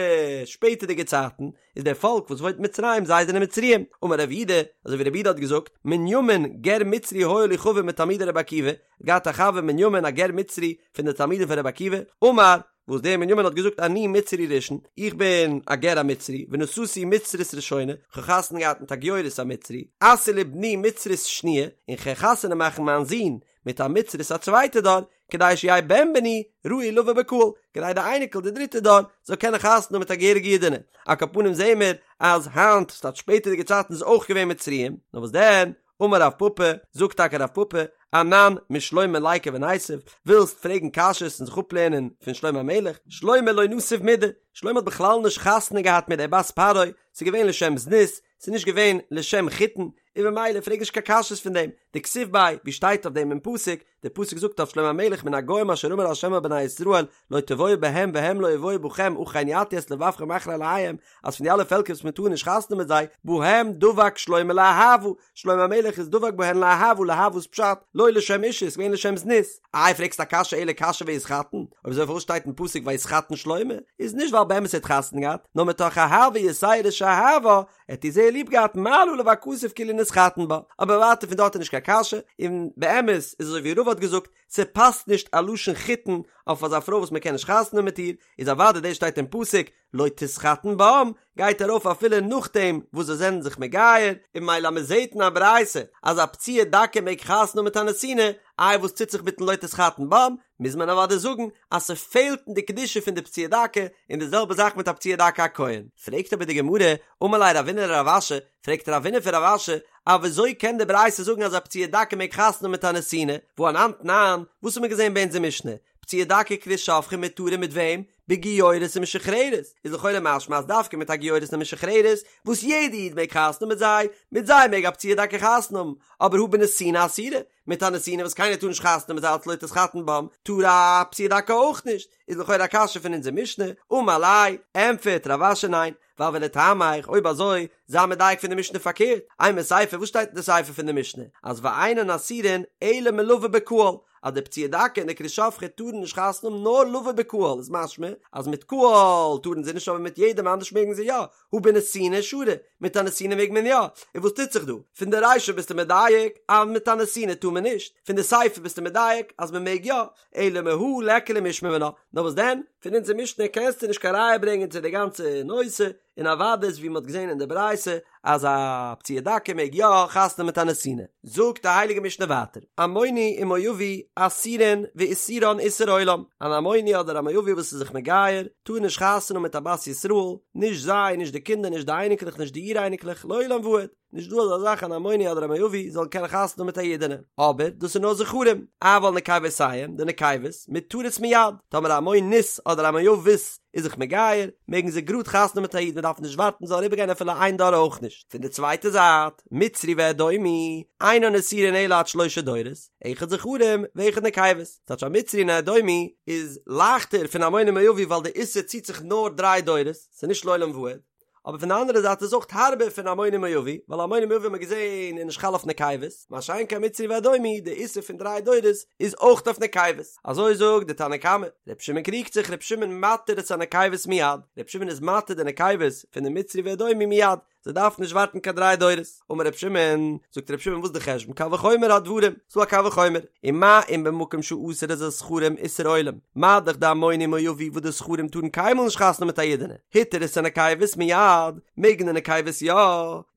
שפעטערדיגע צייטן, איז דער פאלק וואס וואוינט אין מצרים זיי זענען מצריים, אמר רב יהודה, אזוי ווי רב יהודה האט געזאגט, מנימין גר מצרי היה לי חבר מתלמידי רבי עקיבא, געהאט א חבר מנימין א גר מצרי פון די תלמידים פון רבי עקיבא, אמר, וואס דער מנימין האט געזאגט אני מצרי ראשון, איך בין א גר א מצרי, ונשאתי מצרית ראשונה, כ'האב חתונה געהאט מיט א גיורת א מצרי, אשיא לבני מצרית שניה, און כ'גיי חתונה מאכן מיין זון מיט א מצרית א צווייטע דור, כדי שיהא בן בני ראוי לבא בקהל, כדי די אייניקל די דריטע דור זאל קענען חתונה האבן מיט א געהעריגע אידענע, על כל פנים זעהן מיר אז היינט, ס'טייטש שפעטערדיגע צייטן איז אויך געווען מצריים, נאר וואס דען, אמר רב פפא, זאגט טאקע רב פפא, אנן משלמה ליקו וניתיב, ווילסט פרעגן קשיות און זיך אפלערנען פון שלמה המלך, שלמה לא נסיב מידי, שלמה האט בכלל נישט חתונה געהאט מיט דער בת פרעה, ס'איז געווען לשם זנות, ס'איז נישט געווען לשם חיתון, און במילא פרעג נישט קיין קשיות פון דעם, דכתיב ביה, ווי שטייט אויף דעם אין פסוק, דער פסוק זאגט אויף שלמה המלך מן הגוים אשר אמר ה' אל בני ישראל לא תבואו בהם והם לא יבואו בכם אכן יטו את לבבכם אחרי אלהיהם אז פון די אלע פעלקער וואס מען טאר נישט חתונה האבן מיט זיי בהם דבק שלמה לאהבה שלמה המלך איז דבק בהן לאהבה לאהבה איז פשט לא לשם אישות ס'איז געווען לשם זנות איי פרעגסט א קשיא אלא קשיא ויתחתן אויב אזוי פארוואס שטייט אין פסוק ויתחתן שלמה איז נישט ווייל באמת ער האט חתונה געהאט נאר מתוך אהבה יתירה שאהבה ער האט איר זייער ליב געהאט מעלה עליו הכתוב כאילו נתחתן בה אבער ווייטער פון דארט איז נישט קיין קשיא און באמת איז אזוי ווי רבא האט געזאגט ס'פאסט נישט א לשון חיתון אויף אזא פרוי וואס מ'קען נישט חתונה האבן מיט איר איז אוודאי דאס שטייט אין פסוק לא תתחתן בם גייט ארויף אפילו נאכדעם וואס זיי זענען זיך מגייר, און ממילא אז מ'זעט אין א ברייתא אז א פצוע דכא מעג חתונה האבן מיט א נתינה, איי וואס טוט זיך מיטן לא תתחתן בם, מוז מען אוודאי זאגן אז ס'פעלט אין די קדושה פון די פצוע דכא, און די זעלבע זאך מיט א פצוע דכא א כהן. פרעגט אבער די גמרא, אמר ליה רבינא לרב אשי, פרעגט רבינא פון רב אשי, א וויאזוי קען די ברייתא זאגן אז א פצוע דכא מעג חתונה האבן מיט א נתינה, והא אנן תנן, וואס האט מען געזען ביי אונזער משנה, פצוע דכא וכרות שפכה מותרין מיט וועם? בגיורת ומשוחררת, איז לכאורה משמע אז דווקא מיט א גיורת און משוחררת, וואס יעדע איד מעג חתונה האבן מיט זיי, מיט זיי מעג א פצוע דכא חתונה האבן, אבער הא בנתינה אסירא, מיט א נתינה וואס קיינער טאר נישט חתונה האבן מיט זיי אלץ לא תתחתן בם, טאר א פצוע דכא אויך נישט, איז לכאורה א קשיא פון אונזער משנה, אמר ליה, ענטפערט רב אשי ניין, ווייל ולטעמיך, אויב אזוי, זיי מדייק פון די משנה פארקערט, אימא סיפא, וואס שטייט אין די סיפא פון די משנה? אז ואינן אסורין אלא מלבא בקהל, אז די פצוע דכא און די כרות שפכה טארן נישט חתונה האבן נאר לבא בקהל, איז משמע אז מיט קהל טארן זיי נישט אבער מיט יעדעם אנדערש מעגן זיי יא, הא בנתינה שרי, מיט א נתינה מעג מען יא, און וואס טוט זיך דא? פון די רישא ביסטו מדייק אז מיט א נתינה טאר מען נישט, פון די סיפא ביסטו מדייק אז מען מעג יא, אלא מהא ליכא למשמע מינה, נאר וואס דען, פון אונזער משנה קענסטו נישט קיין ראיה ברענגען צו די גאנצע נושא, און אוודאי איז ווי מען האט געזען אין די ברייתא אז א פצוע דכא מעג יא חתונה מיט א נתינה. זאגט די הייליגע משנה ווייטער, עמוני ומואבי אסורין ואיסורן איסור עולם, אן עמוני אדער א מואבי וואס איז זיך מגייר טאר נישט חתונה מיט א בת ישראל, נישט זיי, נישט די קינדער, נישט די אייניקלעך, נישט די אור אייניקלעך, לעולם ועד. נישט דא אזא זאך אן עמוני אדער א מואבי זאל קענען חתונה האבן מיט א אידענע, אבער דאס איז נאר זכרים, אבל נקבותיהם, די נקבות, מותרות מיד, טאמער א עמונית אדער א מואבית איז זיך מגייר, מעגן זיי גראד חתונה האבן מיט א איד, מען דארף נישט ווארטן ס'זאל אריבערגיין אפילו איין דור אויך נישט. פון די צווייטע זייט, מצרי ואדומי, אינן אסורין אלא עד שלשה דורות, אחד זכרים ואחד נקבות, ס'טייטש א מצרי און א אדומי איז לייכטער פון עמוני ומואבי ווייל די איסור ציט זיך נאר דריי דורות, ס'איז נישט לעולם ועד. אבער פון די אנדערע זייט איז אויך הארבער פון עמוני ומואבי, ווייל עמוני ומואבי האט מען געזען איז נישט חל אויף נקבות, מה שאין כן מצרי ואדומי, די איסור פון דריי דורות איז אויך אויף נקבות. אזוי זאגט די תנא קמא. ר' שמעון קריגט זיך, ר' שמעון מתיר את הנקבות מיד, ר' שמעון איז מתיר די נקבות פון די מצרי ואדומי מיד, זיי דארפן נישט ווארטן קיין דריי דורות. אמר ר' שמעון, זאגט ר' שמעון וואס איז די חשבון, קל וחומר הדברים, ס'דא א קל וחומר, ומה אם במקום שאסר את הזכרים איסור עולם, מה דאך דעמוני ומואבי וואס די זכרים טארן קיינמאל נישט חתונה מיט א אידענע, התיר את הנקבות מיד, מעגן די נקבות יא,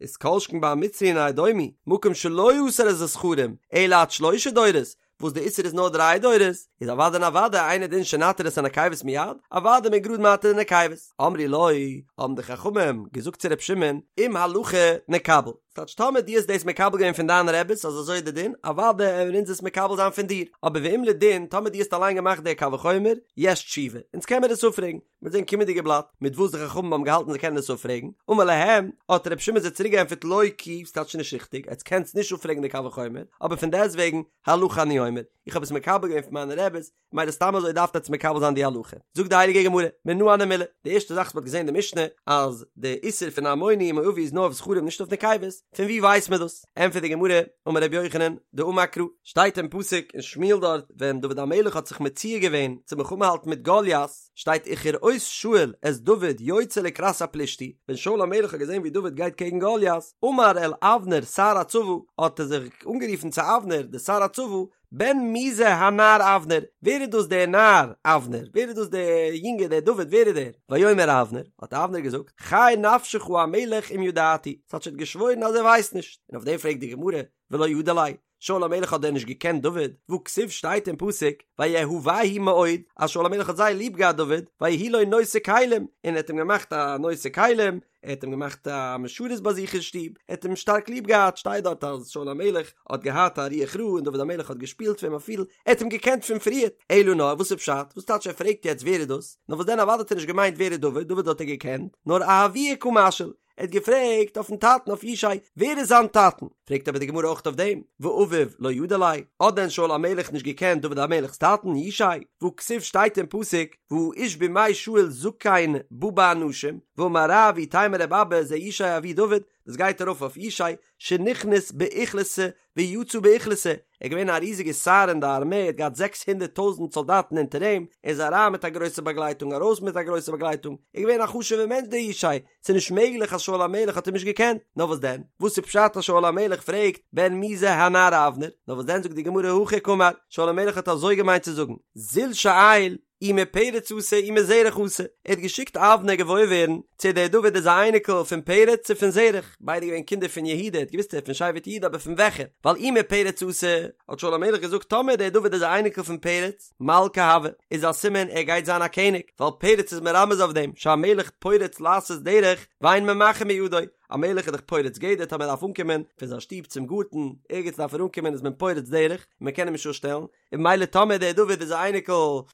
איז כל שכן ביי א מצרי און א אדומי, מקום שלא אסר את הזכרים, אלא עד שלשה דורות, וואס די איסור איז נאר דריי דורות, איז אוודאי און אוודאי אינו דין שנתיר את הנקבות מיד, אוודאי מען גראד מתיר די נקבות. אמרו לו, האבן די חכמים געזאגט צו ר' שמעון, אם הלכה נקבל, ס'טייטש טאמער דו האסט דאס מקבל געווען פון דיינע רעביס אז אזוי איז די דין, אוודאי וועלן אונז עס מקבל זיין פון דיר, אבער ואם לדין, טאמער דו האסט אליין געמאכט די קל וחומר, יש תשובה, אונז קען מיר עס אפפרעגן. מיר זעהן קומענדיגע בלאט מיט וואס די חכמים האבן געהאלטן זיי קענען עס אפפרעגן, אמר להם, האט רבי שמעון זיי צוריק געענטפערט לא כי, ס'טייטש נישט ריכטיג, עטס קענטס נישט אפפרעגן די קל וחומר, אבער פון דעסטוועגן, הלכה אני אומר, איך האב עס מקבל געווען פון מיינע רעביס, ממילא סתם אזוי דארפט עטס מקבל זיין די הלכה. זאגט די הייליגע גמרא, מנא הני מילי, די ערשטע זאך וואס מ'האט געזען אין די משנה, אז די איסור פון עמוני ומואבי איז נאר אויף זכרים נישט אויף נקבות, פון וואו ווייסט מען דאס? ענטפערט די גמרא, אמר רבי יוחנן, דאמר קרא, שטייט אין פסוק אין שמואל דארט, ווען דוד המלך האט זיך מציע געווען צו מלחמה האלטן מיט גוליית, שטייט וכראות שאול את דוד יוצא לקראת הפלישתי, ווען שאול המלך האט געזען ווי דוד גייט קעגן גוליית, אמר אל אבנר שר הצבא, האט ער זיך אנגערופן צו אבנר דער שר הצבא, בן מי זה הנער אבנר, ווער איז דאס דער נער אבנר, ווער איז דאס דער יונגער דער דוד, ווער איז דער? ויאמר אבנר, האט אבנר געזאגט, חי נפשך המלך אם ידעתי, ס'טייטש ער האט געשוואוירן אז ער ווייסט נישט, און אויף דעם פרעגט די גמרא, ולא ידע ליה, שאול המלך האט דען נישט געקענט דוד? והכתיב שטייט אין פסוק, ויאהבהו מאוד, אז שאול המלך האט זייער ליב געהאט דוד, ויהי לו נושא כלים, און ער האט אים געמאכט א נושא כלים, ער האט אים געמאכט א משרת ביי זיך אין שטוב, ער האט אים שטארק ליב געהאט, שטייט דארט אז שאול המלך האט געהאט א רוח רעה און דוד המלך האט געשפילט פאר אים א פידל, ער האט אים געקענט פון פריערט, אלא נאר וואס איז פשט? וואס טייטש ער פרעגט יעצט ווער איז דאס? נאר וואס דען אוודאי האט ער נישט געמיינט ווער איז דוד, דוד האט ער געקענט, נאר אהבוה קא משאיל. ער האט געפרעגט אויפן טאטן אויף ישי, ווער איז זיין טאטן? פרעגט אבער די גמרא אויך אויף דעם, ואביו לא ידע ליה, האט דען שאול המלך נישט געקענט דוד המלך'ס טאטן, ישי? והכתיב שטייט אין פסוק, והאיש בימי שאול זקן בא באנשים, ואמר רב ואיתימא רבי אבא זה ישי אבי דוד, דאס גייט ארויף אויף ישי, שנכנס באוכלוסא ויצא באוכלוסא, ער איז געווען א ריזיגע שר אין די ארמעי, ער האט געהאט זעקס הונדערט טויזנט סאלדאטן אונטער אים, ער איז אריין מיט א גרויסע באגלייטונג ארויס מיט א גרויסע באגלייטונג, ער איז געווען א חשוב'ער מענטש דער ישי, ס'איז נישט מעגליך אז שאול המלך האט אים נישט געקענט, נאר וואס דען? וואס איז פשט אז שאול המלך פרעגט בן מי זה הנער אבנר? נאר וואס דען זאגט די גמרא הכי קאמר, שאול המלך האט אזוי געמיינט צו זאגן, זיל שאיל אי מפרץ אתא אי מזרח אתא, ער האט געשיקט אבנר געוואויר ווערן צו דער דוד איז א אייניקל פון פרץ צו פון זרח, ביידע געווען קינדער פון יהודה, ער האט געוואוסט ער איז פון שבט יהודה אבער פון וועלכע, ווייל אי מפרץ אתא, האט שאול המלך געזאגט טאמער דער דוד איז א אייניקל פון פרץ, מלכא הוי, איז א סימן ער גייט זיין א קעניג, ווייל פרץ איז מרמז אויף דעם, שהמלך פורץ לעשות דרך ואין ממחין בידו, א מלך איז דאך פורץ גדר טאמער ער דארף אנקומען פון זיין שטוב צום גארטן, ערגעץ דארף ער אנקומען איז מען פורץ דרך, און מען קען אים נישט אפשטעלן, און ממילא טאמער דער דוד איז א אייניקל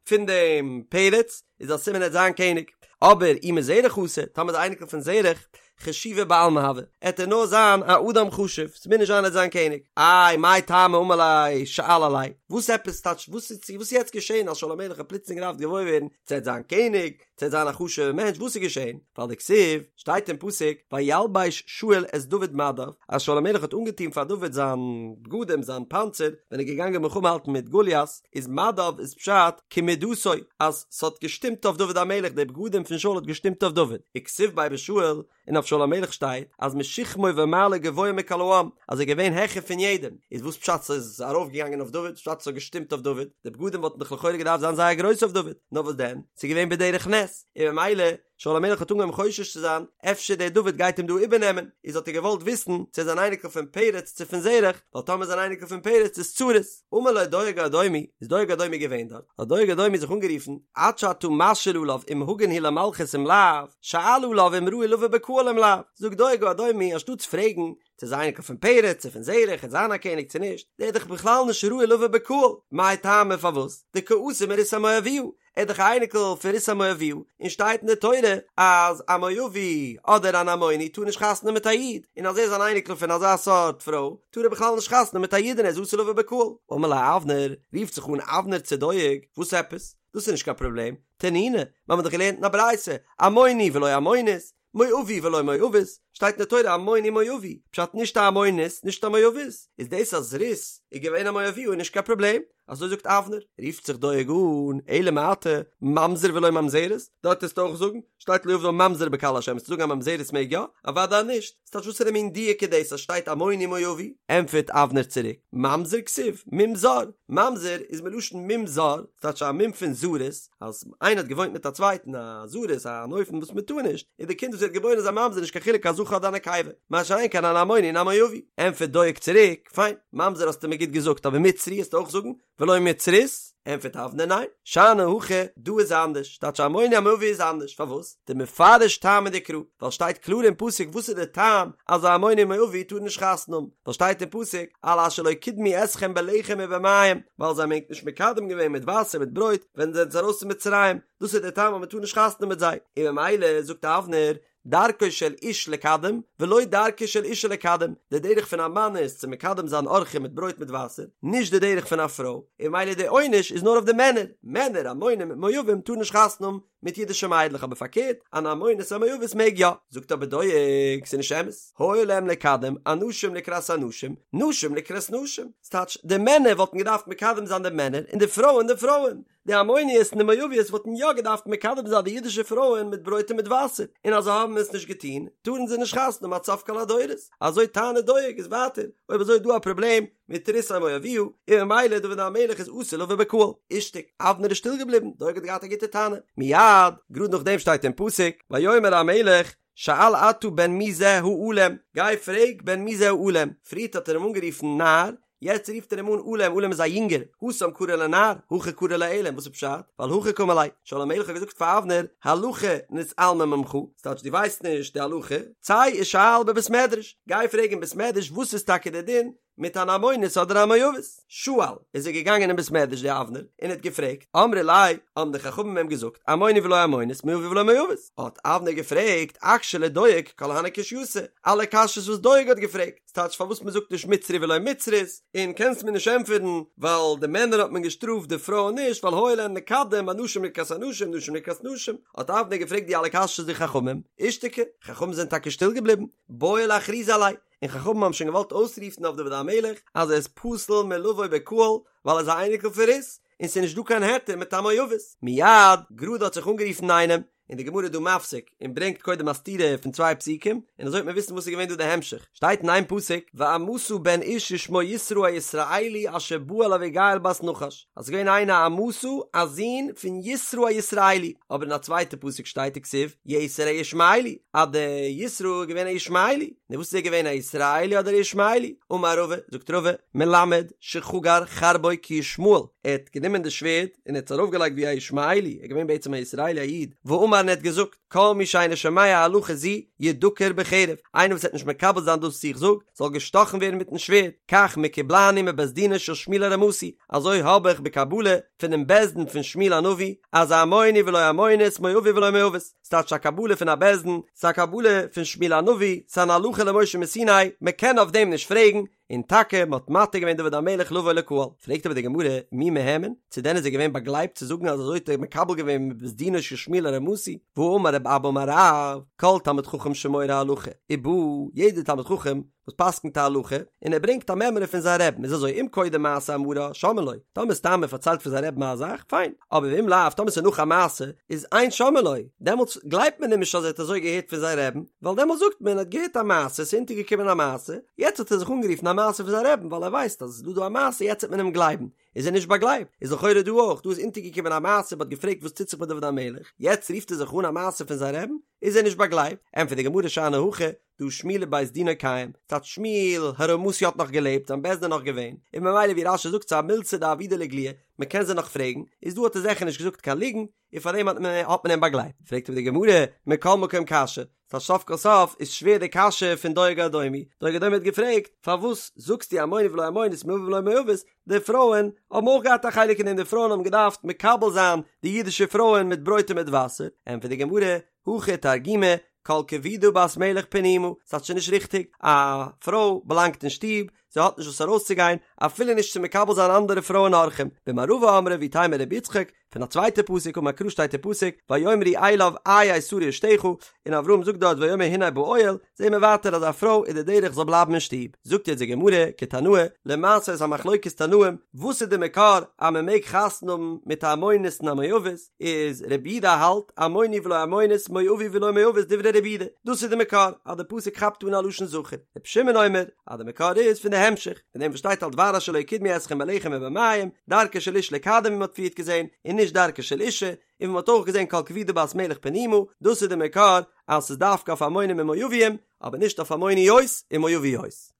פון דעם פרץ, איז א סימן ער וועט זיין קעניג. אבער אי מזרח אתא, טאמער איז א אייניקל פון זרח, חשיבא בעלמא הוי, עט ער נאר זיין א אדם חשוב, ס'מוז נישט זיין ער וועט זיין קעניג. איי מאי טעמא אמר ליה שאל עליה, וואס עפעס טייטש וואס איז וואס איז יעצט געשען אז שאול המלך האט פלוצלינג געדארפט געוואויר ווערן צו ער וועט זיין קעניג, צו ער וועט זיין א חשוב'ער מענטש, וואס איז געשען? ווייל דכתיב, שטייט אין פסוק, וילבש שאול את דוד מדיו, אז שאול המלך האט אנגעטון פאר דוד זיין בגדים, זיין פאנצער, ווען ער איז געגאנגען מלחמה האלטן מיט גוליית, איז מדיו איז פשט כמידתו, אז ס'האט געשטימט אויף דוד המלך, די בגדים פון שאול האט געשטימט אויף דוד, וכתיב ביה בשאול, און אויף שאול המלך שטייט אז משכמו ומעלה גבוה מכל העם, אז ער איז געווען העכער פון יעדעם, איז וואס פשט ס'איז ארויף געגאנגען אויף דוד, פשט ס'האט געשטימט אויף דוד, די בגדים וואלטן דאך לכאורה געדארפט זיין זייער גרויס אויף דוד, נאר וואס דען, ס'איז געווען בדרך נס, און ממילא, שאול המלך האט אנגעהויבן חושש צו זיין, אפשר דער דוד גייט אים דא איבערנעמען, איז האט ער געוואלט וויסן צו ער איז אן אייניקל פון פרץ צו פון זרח, ווייל טאמער איז אן אייניקל פון פרץ איז צרות. אמר לו דואג האדומי, איז דואג האדומי געווען דארט, האט דואג האדומי זיך אנגערופן, עד שאתה משאיל עליו אם הגון הוא למלכות אם לאו, שאל עליו אם ראוי לבא בקהל אם לאו, זאגט דואג האדומי, אנשטאטס פרעגן צו איז אייניקל פון פרץ צו פון זרח, עט זיין א קעניג צו נישט, דער איז דאך בכלל נישט ראוי לבא בקהל, מאי טעמא פארוואס, דקא אתי מרות המואביה, ער איז דאך א אייניקל פון רות המואביה, און שטייט אין די תורה אז א מואבי אדער אן עמוני טאר נישט חתונה מיט א איד, און אז ער איז אן אייניקל פון אזא סארט פרוי טאר ער בכלל נישט חתונה מיט א אידענע איז אסור לבא בקהל. אמר ליה אבנר, רופט זיך אן אבנר צו דואג, וואס עפעס? דאס איז נישט קיין פראבלעם, תנינא, מיר האבן דאך געלערנט אין א ברייתא, עמוני ולא עמונית, מואבי ולא מואבית, שטייט אין די תורה עמוני מואבי, פשט נישט א עמונית נישט א מואבית, איז דאס אז רות איז געווען א מואביה איז נישט קיין פראבלעם, אזוי זאגט אבנר, רופט זיך דואג אן, אלא מעתה, ממזר ולא ממזרת, דארט וועסטו אויך זאגן, שטייט לא יבא ממזר בקהל השם, וועסטו זאגן א ממזרת מעג יא? אוודאי נישט, ס'טייטש וואסערע מין דיוק איז דאס אז שטייט עמוני מואבי? ענטפערט אבנר צוריק, ממזר כתיב, מום זר, ממזר איז מלשון מום זר, ס'טייטש א מום פון זרות, אז איינער האט געוואוינט מיט א צווייטן א זרות אן אופן וואס מען טאר נישט, איז די קינד וואס ווערט געבוירן איז א ממזר נישט קיין חילוק א זכר אדער א נקבה, מה שאין כן אן עמוני און א מואבי. ענטפערט דואג צוריק, פיין, ממזר האסטו מיר גוט געזאגט אבער מצרי וועסטו אויך זאגן, ולא מצרית? ענטפערט אבנר ניין, שאני הכא, דא איז אנדערש, טייטש עמוני המואבי איז אנדערש, פארוואס? דמפרש טעמא דקרא, ווייל שטייט קלאר אין פסוק וואס איז די טעם אז א עמוני מואבי טאר נישט חתונה האבן, ווייל שטייט אין פסוק על אשר לא קדמו אתכם בלחם ובמים, ווייל זיי האבן ענק נישט מקדם געווען מיט וואסער מיט ברויט ווען זיי זענען ארויס פון מצרים, דאס איז די טעם אז מען טאר נישט חתונה האבן מיט זיי, און ממילא זאגט אבנר, דרכו של איש לקדם, ולא דרכה של אישה לקדם, די דרך פון א מאן איז צו מקדם זיין אורחים מיט ברויט מיט וואסער, נישט די דרך פון א פרוי, און ממילא די עונש איז נאר אויף די מענער, מענער עמונים מואבים טארן נישט חתונה האבן מיט אידישע מיידלעך אבער פארקערט אן עמונית א מואבית מעג יא, זאגט אבער דואג ס'איז נישט אמת, היה להם לקדם אנשים לקראת אנשים, נשים לקראת נשים, ס'טייטש די מענער וואלטן געדארפט מקדם זיין די מענער און די פרויען די פרויען, די עמוניות און די מואביות וואלטן יא געדארפט מקדם זיין די אידישע פרויען מיט ברויט און מיט וואסער, און אז זיי האבן עס נישט געטון טארן זיי נישט חתונה האבן עד סוף כל הדורות, אזוי טענה'ט דואג איז ווייטער, אויב אזוי איז דא א פראבלעם מיט רות המואביה, און ממילא דוד המלך איז אסור לבא בקהל. אישתיק, אבנר איז שטיל געבליבן, דואג האט געהאט א גוטע טענה. מיד, גראד נאכדעם שטייט אין פסוק, ויאמר המלך, שאל אתה בן מי זה העלם, גיי פרעג בן מי זה העלם, פריערט האט ער אים אנגערופן נער, יעצט רופט ער אים אן עלם, עלם איז א יונגער, התם קרי ליה נער, הכא קרי ליה עלם, וואס איז פשט? ווייל הכי קאמר ליה, שאול המלך האט געזאגט פאר אבנר, הלכה נתעלמה ממך, ס'טייטש דו ווייסט נישט די הלכה, צא ושאל בבית מדרש, גיי פרעג אין בית מדרש וואס איז טאקע די דין? מיט אן עמונית אדער א מואבית. שאל, איז ער געגאנגען אין בית מדרש די אבנר און האט געפרעגט, אמרי ליה, האבן די חכמים אים געזאגט, עמוני ולא עמונית, מואבי ולא מואבית. האט אבנר געפרעגט, אקשי לדואג כל הני קושייתא, אלע קשיות וואס דואג האט געפרעגט, ס'טייטש פארוואס מ'זאגט נישט מצרי ולא מצרית, און קענסט מיר נישט ענטפערן ווייל די מענער האט מען געשטראפט די פרויען נישט ווייל היה להן לקדם אנשים לקראת אנשים נשים לקראת נשים, האט אבנר געפרעגט די אלע קשיות די חכמים, אישתיקו, חכמים זענען טאקע שטיל געבליבן, בעו לאכרוזי עליה, און חכמים האבן שוין געוואלט אויסרופן אויף דוד המלך אז ער איז פסול מלבוא בקהל ווייל ער איז א אייניקל פון רות, און ס'איז נישט דא קיין היתר מיט א מואבית. מיד, גראד האט זיך אנגערופן איינעם, און די גמרא איז דא מפסיק און ברענגט קודם א סתירה פון צוויי פסוקים, און אזוי וועט מען וויסן וואס איז געווען דא די המשך, שטייט אין איין פסוק, ועמסה בן איש ושמו יתרא הישראלי אשר בא אל אביגיל בת נחש, אז ס'איז געווען איינער עמשא א זון פון יתרא הישראלי, אבער אין א צווייטע פסוק שטייט וכתיב יתר הישמעאלי, אז די יתרא איז געווען א ישמעאלי, נו וואס איז ער געווען א ישראלי אדער א ישמעאלי? אמר רבא, זאגט רבא, מלמד שחגר חרבו כישמעאל, ער האט גענומען די שווערד און ער האט עס ארויפגעלייגט ווי א ישמעאלי, ער איז געווען בעצם א ישראלי א איד, ואמר און ער האט געזאגט, כל מי שאינו שומע הלכה זו ידקר בחרב, איינער וואס וועט נישט מקבל זיין דאס וואס איך זאג, זאל געשטאכן ווערן מיטן שווערד, כך מקובלני מבית דינו של שמואל הרמתי, אזוי האב איך בקבלה פונעם בית דין פון שמואל הנביא, אז עמוני ולא עמונית, מואבי ולא מואבית, ס'טייטש א קבלה פון א בית דין, ס'איז א קבלה פון שמואל הנביא, ס'איז אן הלכה למשה מסיני, מ'קען אויף דעם נישט פרעגן, און טאקע מ'האט מתיר געווען דוד המלך לבוא לקהל. פרעגט אבער די גמרא, מי מהימן? צו דען איז ער געווען באגלייבט צו זאגן אז אזוי האט ער מקבל געווען מבית דינו של שמואל הרמתי? והאמר רב אבא אמר רב, כל תלמיד חכם שמורה הלכה, ובא, יעדער תלמיד חכם וואס פסק'נט א הלכה, און ער ברענגט א מימרא פון זיין רעבן, איז אזוי, אם קודם מעשה אמרה, שומעין לו, טאמער סתם ער פארציילט פון זיין רעבן א זאך, פיין, אבער ואם לאו, טאמער ס'איז נאך א מעשה, איז אין שומעין לו, דעמאלטס גלייבט מען אים נישט אז ער האט אזוי געהערט פון זיין רעבן, ווייל דעמאלטס זאגט מען ער האט געהערט א מעשה, ס'איז אונטערגעקומען א מעשה, יעצט האט ער זיך אנגערופן א מעשה פון זיין רעבן, ווייל ער ווייסט אז עס איז דא דא א מעשה, יעצט וועט מען אים גלייבן, איז ער נישט באגלייבט, איז לכאורה דא אויך, דא איז אונטערגעקומען א מעשה, מ'האט געפרעגט וואס טוט זיך מיט דוד המלך, יעצט רופט ער זיך אן א מעשה פון זיין רעבן, איז ער נישט באגלייבט, ענטפערט די גמרא שאני הכא, דהא שמואל ובית דינו קיים, ס'טייטש שמואל הרמתי האט נאך געלעבט, זיין בית דין נאך געווען, און ממילא ווי רש"י זאגט ס'איז א מילתא דעבידא לאיגלויי, מ'קען זיי נאך פרעגן, איז דא האט ער זיכער נישט געזאגט קיין ליגנט, און פארדעם האט מען האט מען אים באגלייבט. פרעגט אבער די גמרא, מכל מקום קשיא, ס'טייטש סוף כל סוף איז שווער די קשיא פון דואג האדומי, דואג האדומי האט געפרעגט, פארוואס זאגסטו עמוני ולא עמונית מואבי ולא מואבית, די פרויען האבן אויך געהאט א חלק אין דעם, די פרויען האבן געדארפט מקבל זיין די אידישע פרויען מיט ברויט און מיט וואסער, ענטפערט די גמרא, הכי תרגימו, כל כבודה בת מלך פנימה, ס'טייטש ס'איז נישט ריכטיג, א פרוי באלאנגט אין שטוב, זי האט נישט וואס ארויסצוגיין, אפילו נישט צו מקבל זיין אנדערע פרויען אורחים, במערבא אמרי ואיתימא רבי יצחק, פון א צווייטע פסוק אמר קרא שטייט אין פסוק, ויאמרו אליו איה שרה אשתך, און אברהם זאגט דארט ויאמר הנה באוהל, זעהן מיר ווייטער אז א פרוי איז די דרך זאל בלייבן אין שטוב. זאגט יעצט די גמרא, כתנאי, למעשה איז א מחלוקת תנאים, וואס איז די מקור אז מען מעג חתונה האבן מיט א עמונית און א מואבית, איז רבי יהודה האלט, עמוני ולא עמונית, מואבי ולא מואבית דברי רבי יהודה, דאס איז די מקור אז די פסוק כאפט אן א לשון זכר, רבי שמעון אומר, אז די מקור איז פון די המשך, פון דעם וואס שטייט על דבר אשר לא יקדמו אתכם בלחם ובמים, דרכה של איש לקדם ווי מען האט פריערט געזען, און נישט דרכה של אישה, און ווי מען האט אויך געזען כל כבודה בת מלך פנימה, דאס איז די מקור אז ס'איז דווקא אויף עמונים און מואבים, אבער נישט אויף עמוניות און מואביות.